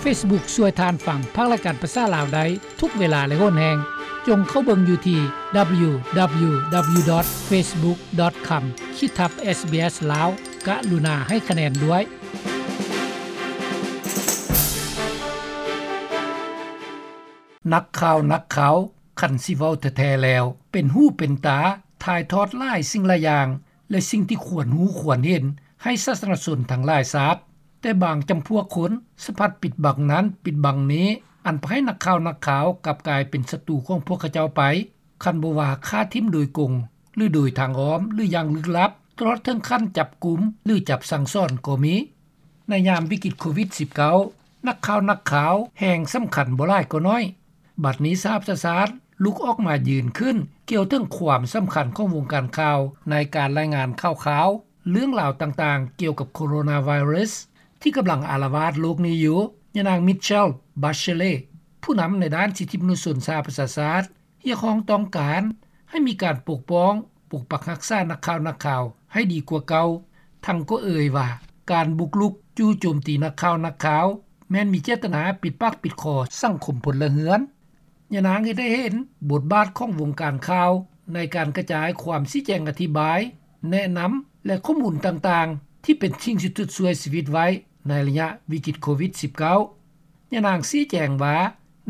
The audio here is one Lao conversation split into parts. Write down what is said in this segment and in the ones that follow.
Facebook ຊ່ວຍທ່ານຟັງພາກລາຍການພາສາລາວໄດ້ທຸກເວລາ ແລະ ໂຫນແຮງ. ຈົ່ງເຂົ້າເບິ່ງຢູ່ທີ່ www.facebook.com ຂີດທັບ SBS ລາວ. ກະລຸນາໃຫ້ຄະແນນດ້ວຍ. ນັກຂ່າວ ນັກຂ່າວ, ຄັນຊິເວົ້າແທ້ໆແລ້ວ ເປັນຫູເປັນຕາ, ຖ່າຍທອດຫຼາຍສິ່ງຫຼາຍຢ່າງ ແລະ ສິ່ງທີ່ຄວນຮູ້ຄວນເຫັນໃຫ້ສາທາລະນະຊົນທັງຫຼາຍຊາບ. ແຕ່ບາງຈຳພວກຄົນສະພັດປິດບັງນັ້ນປິດບັງນີ້, ອັນພາໃຫ້ນັກຂ່າວ ນັກຂ່າວກັບກາຍເປັນສັດຕູຂອງພວກເຂົາເຈົ້າໄປ, ຄັນບໍ່ວ່າຂ້າຖິ້ມໂດຍກົງ ຫຼື ໂດຍທາງອ້ອມ ຫຼື ຢ່າງລຶກລັບ, ຕະຫຼອດເຖິງຂັ້ນຈັບກຸມ ຫຼື ຈັບສັ່ງສອນກໍມີ. ໃນຍາມວິກິດໂຄວິດສິບເກົ້າ ນັກຂ່າວ ນັກຂ່າວແຮ່ງສຳຄັນບໍ່ຫຼາຍກໍໜ້ອຍ. ບັດນີ້ສະຫະປະຊາຊາດລຸກອອກມາຢືນຂຶ້ນກ່ຽວເຖິງຄວາມສຳຄັນຂອງວົງການຂ່າວໃນການລາຍງານຂ່າວຄາວ ເລື່ອງລາວຕ່າງໆກ່ຽວກັບໂຄໂຣນາໄວຣັສທີ່ກຳລັງອາລະວາດໂລກນີ້ຢູ່. ຍານາງ Michelle Bachelet ຜູ້ນຳໃນດ້ານສິດທິມະນຸດຊົນສະຫະປະຊາຊາດ ຮຽກຮ້ອງຕ້ອງການໃຫ້ມີການປົກປ້ອງ, ປົກປັກຮັກສານັກຂ່າວ ນັກຂ່າວໃຫ້ດີກວ່າເກົ່າ, ທັງກໍເອີ່ຍວ່າ ການບຸກລຸກຈູ່ໂຈມຕີນັກຂ່າວ ນັກຂ່າວ ແມ່ນມີເຈດຕະນາປິດປາກປິດຄໍສັງຄົມພົນລະເຮືອນ. ຍານາງເຮັດໃຫ້ເຫັນບົດບາດຂອງວົງການຂ່າວໃນການກະຈາຍຄວາມຊີ້ແຈງອະທິບາຍ, ແນະນຳ ແລະ ຂໍ້ມູນຕ່າງໆ ທີ່ເປັນສິ່ງສຸດຊ່ວຍຊີວິດໄວ້ໃນໄລຍະວິກິດໂຄວິດສິບເກົ້າ. ຍານາງຊີ້ແຈງວ່າ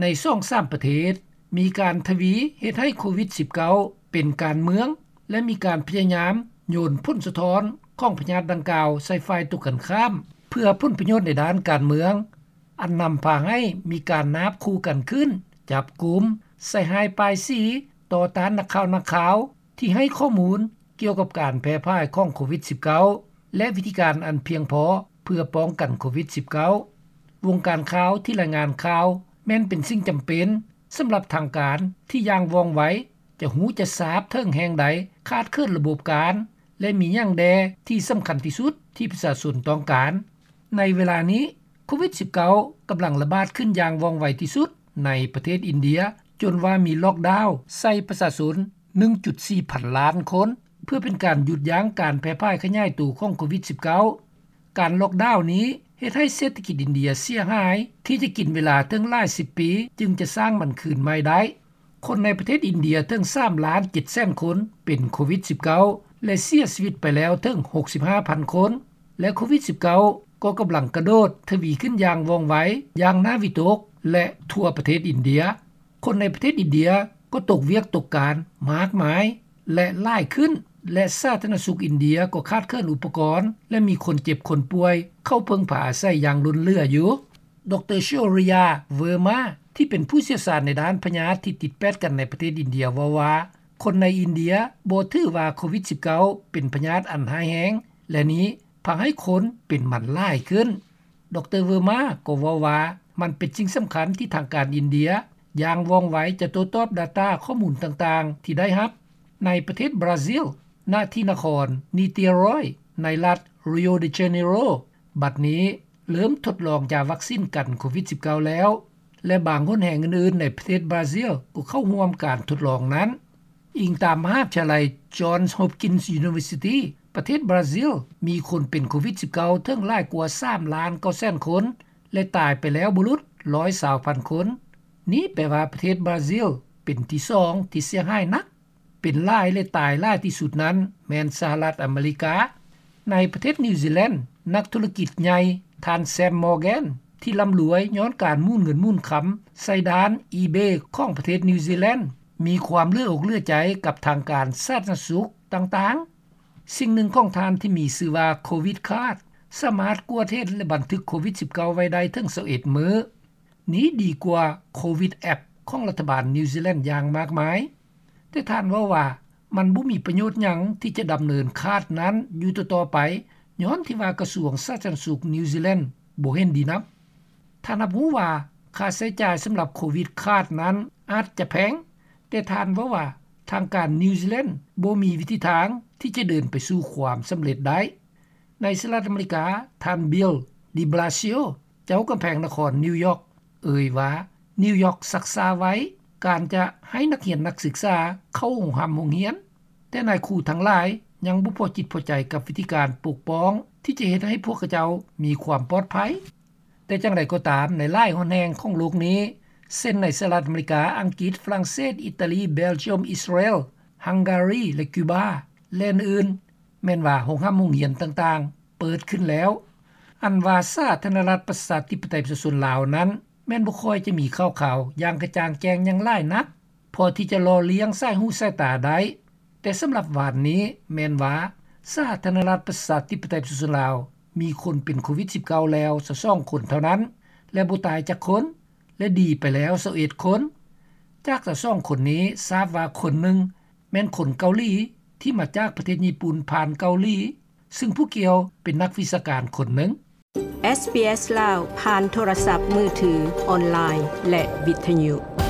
ໃນສອງສາມປະເທດ ມີການທະວີເຮັດໃຫ້ໂຄວິດສິບເກົ້າເປັນການເມືອງ ແລະ ມີການພະຍາຍາມໂຍນຜົນສະທ້ອນຂອງພະຍາດດັ່ງກ່າວໃສ່ຝ່າຍຕົງກັນຂ້າມ ເພື່ອຜົນປະໂຫຍດໃນດ້ານການເມືອງ, ອັນນຳພາໃຫ້ມີການນາບຂູ່ກັນຂຶ້ນ, ຈັບກຸມ, ໃສ່ຮ້າຍປ້າຍສີຕໍ່ຕ້ານນັກຂ່າວ ນັກຂ່າວ ທີ່ໃຫ້ຂໍ້ມູນກ່ຽວກັບການແຜ່ພ່າຍຂອງໂຄວິດສິບເກົ້າ ແລະ ວິທີການອັນພຽງພໍເພື່ອປ້ອງກັນໂຄວິດສິບເກົ້າ. ວົງການຂ່າວທີ່ລາຍງານຂ່າວແມ່ນເປັນສິ່ງຈຳເປັນສຳລັບທາງການທີ່ຢ່າງວ່ອງໄວ ຈະຮູ້ຈະຊາບເຖິງແຫ່ງໃດຂາດເຂີນລະບົບການ ແລະ ມີຫຍັງແດ່ທີ່ສຳຄັນທີ່ສຸດທີ່ປະຊາຊົນຕ້ອງການ. ໃນເວລານີ້ ໂຄວິດສິບເກົ້າກຳລັງລະບາດຂຶ້ນຢ່າງວ່ອງໄວທີ່ສຸດໃນປະເທດອິນເດຍ, ຈົນວ່າມີລັອກດາວໃສ່ປະຊາຊົນ ໜຶ່ງຈຸດສີ່ພັນລ້ານຄົນ ເພື່ອເປັນການຢຸດຢັ້ງການແຜ່ພ່າຍຂະຫຍາຍໂຕຂອງໂຄວິດສິບເກົ້າ. ການລັອກດາວນີ້ເຮັດໃຫ້ເສດຖະກິດອິນເດຍເສຍຫາຍ ທີ່ຈະກິນເວລາເຖິງຫຼາຍສິບປີຈຶ່ງຈະສ້າງມັນຄືນໃໝ່ໄດ້. ຄົນໃນປະເທດອິນເດຍເຖິງສາມລ້ານເຈັດແສນຄົນເປັນໂຄວິດສິບເກົ້າ ແລະ ເສຍຊີວິດໄປແລ້ວເຖິງຫົກສິບຫ້າພັນຄົນ ແລະ ໂຄວິດສິບເກົ້າກໍກຳລັງກະໂດດທະວີຂຶ້ນຢ່າງວ່ອງໄວ, ຢ່າງໜ້າວິຕົກ ແລະ ທົ່ວປະເທດອິນເດຍ. ຄົນໃນປະເທດອິນເດຍກໍຕົກວຽກຕົກການມາກມາຍ ແລະ ຫຼາຍຂຶ້ນ ແລະ ສາທາລະນະສຸກອິນເດຍກໍຂາດເຂີນອຸປະກອນ ແລະ ມີຄົນເຈັບຄົນປ່ວຍເຂົ້າເພິ່ງພາອາໄສຢ່າງລົ້ນເຫຼືອຢູ່. ດຣ. Shaurya Verma ທີ່ເປັນຜູ້ຊ່ຽວຊານໃນດ້ານພະຍາດທີ່ຕິດແປດກັນໃນປະເທດອິນເດຍເວົ້າວ່າ ຄົນໃນອິນເດຍບໍ່ຖືວ່າໂຄວິດສິບເກົ້າເປັນພະຍາດອັນຮ້າຍແຮງ ແລະ ນີ້ພາໃຫ້ຄົນເປັນມັນຫຼາຍຂຶ້ນ. ດຣ. Verma ກໍເວົ້າວ່າ ມັນເປັນສິ່ງສຳຄັນທີ່ທາງການອິນເດຍຢ່າງວ່ອງໄວຈະໂຕ້ຕອບ data ຂໍ້ມູນຕ່າງໆທີ່ໄດ້ຮັບ. ໃນປະເທດບຣາຊິລ, ນະທີ່ນະຄອນ Niterói ໃນລັດ Rio de Janeiro ບັດນີ້ເລີ່ມທົດລອງຢາວັກຊີນກັນໂຄວິດສິບເກົ້າແລ້ວ ແລະ ບາງຫົນແຫ່ງອື່ນໆໃນປະເທດບຣາຊິລກໍເຂົ້າຮ່ວມການທົດລອງນັ້ນ. ອີງຕາມມະຫາວິທະຍາໄລ Johns Hopkins University, ປະເທດບຣາຊິລມີຄົນເປັນໂຄວິດສິບເກົ້າເຖິງຫຼາຍກວ່າສາມລ້ານເກົ້າແສນຄົນ ແລະ ຕາຍໄປແລ້ວບໍ່ຫຼຸດຮ້ອຍຊາວພັນຄົນ. ນີ້ແປວ່າປະເທດບຣາຊິລເປັນທີສອງທີ່ເສຍຫາຍໜັກ. ເປັນຫຼາຍ ແລະ ຕາຍຫຼາຍທີ່ສຸດນັ້ນແມ່ນສະຫະລັດອາເມລິກາ. ໃນປະເທດນິວຊີແລນ, ນັກທຸລະກິດໃຫຍ່ ທ່ານ Sam Morgan ທີ່ລ່ຳລວຍຍ້ອນການໝູນເງິນໝູນຄຳໃສ່ດ່ານ eBay ຂອງປະເທດນິວຊີແລນ ມີຄວາມເຫຼືອອົກເຫຼືອໃຈກັບທາງການສາທາລະນະສຸກຕ່າງໆ. ສິ່ງໜຶ່ງຂອງທ່ານທີ່ມີຊື່ວ່າ Covid Card ສາມາດກວດເຫັນ ແລະ ບັນທຶກໂຄວິດສິບເກົ້າໄວ້ໄດ້ເຖິງຊາວເອັດມື້. ນີ້ດີກວ່າ Covid App ຂອງລັດຖະບານນິວຊີແລນຢ່າງມາກມາຍ. ແຕ່ທ່ານເວົ້າວ່າ ມັນບໍ່ມີປະໂຫຍດຫຍັງທີ່ຈະດຳເນີນ card ນັ້ນຢູ່ຕໍ່ໆໄປ ຍ້ອນທີ່ວ່າກະຊວງສາທາລະນະສຸກນິວຊີແລນບໍ່ເຫັນດີນຳ. ທ່ານຮັບຮູ້ວ່າຄ່າໃຊ້ຈ່າຍສຳລັບ Covid Card ນັ້ນອາດຈະແພງ, ແຕ່ທ່ານເວົ້າວ່າທາງການນິວຊີແລນບໍ່ມີວິທີທາງທີ່ຈະເດີນໄປສູ່ຄວາມສຳເລັດໄດ້. ໃນສະຫະລັດອາເມລິກາ, ທ່ານ Bill de Blasio ເຈົ້າກຳແພງນະຄອນນິວຢອກ ເອີ່ຍວ່າ ນິວຢອກຊັກຊ້າໄວ້ການຈະໃຫ້ນັກຮຽນນັກສຶກສາເຂົ້າໂຮງຮ່ຳໂຮງຮຽນ, ແຕ່ນາຍຄູທັງຫຼາຍຍັງບໍ່ພໍຈິດພໍໃຈກັບວິທີການປົກປ້ອງທີ່ຈະເຮັດໃຫ້ພວກເຂົາເຈົ້າມີຄວາມປອດໄພ. ແຕ່ຢ່າງໃດກໍຕາມ ໃນຫຼາຍແຫ່ງຂອງໂລກນີ້ ເຊັ່ນໃນສະຫະລັດອາເມລິກາ, ອັງກິດ, ຝຣັ່ງເສດ, ອີຕາລີ, ເບລຈຽມ, ອິສຣາແອລ, ຮັງກາຣີ ແລະ ຄິວບາ ແລະອື່ນໆ ແມ່ນວ່າໂຮງຮ່ຳໂຮງຮຽນຕ່າງໆ ເປີດຂຶ້ນແລ້ວ. ອັນວ່າສາທາລະນະລັດ ປະຊາທິປະໄຕ ປະຊາຊົນລາວນັ້ນ ແມ່ນບໍ່ຄ່ອຍຈະມີຂ່າວຄາວຢ່າງກະຈ່າງແຈ້ງຫຍັງຫຼາຍນັກ ພໍທີ່ຈະຫຼໍ່ລ້ຽງສາຍຫູສາຍຕາໄດ້. ແຕ່ສຳລັບວານນີ້ ແມ່ນວ່າສາທາລະນະລັດ ປະຊາທິປະໄຕ ປະຊາຊົນລາວ ມີຄົນເປັນໂຄວິດ-19 ແລ້ວ ຊາວສອງຄົນເທົ່ານັ້ນ ແລະບໍ່ຕາຍຈັກຄົນ ແລະດີໄປແລ້ວຊາວເອັດຄົນ. ຈາກຊາວສອງຄົນນີ້ ຊາບວ່າຄົນໜຶ່ງ ແມ່ນຄົນເກົາຫຼີ ທີ່ມາຈາກປະເທດຍີ່ປຸ່ນຜ່ານເກົາຫຼີ ຊຶ່ງຜູ້ກ່ຽວເປັນນັກວິຊາການຄົນໜຶ່ງ. ເອສບີເອສລາວ ຜ່ານໂທລະສັບມືຖື, ອອນລາຍ ແລະ ວິທະຍຸ.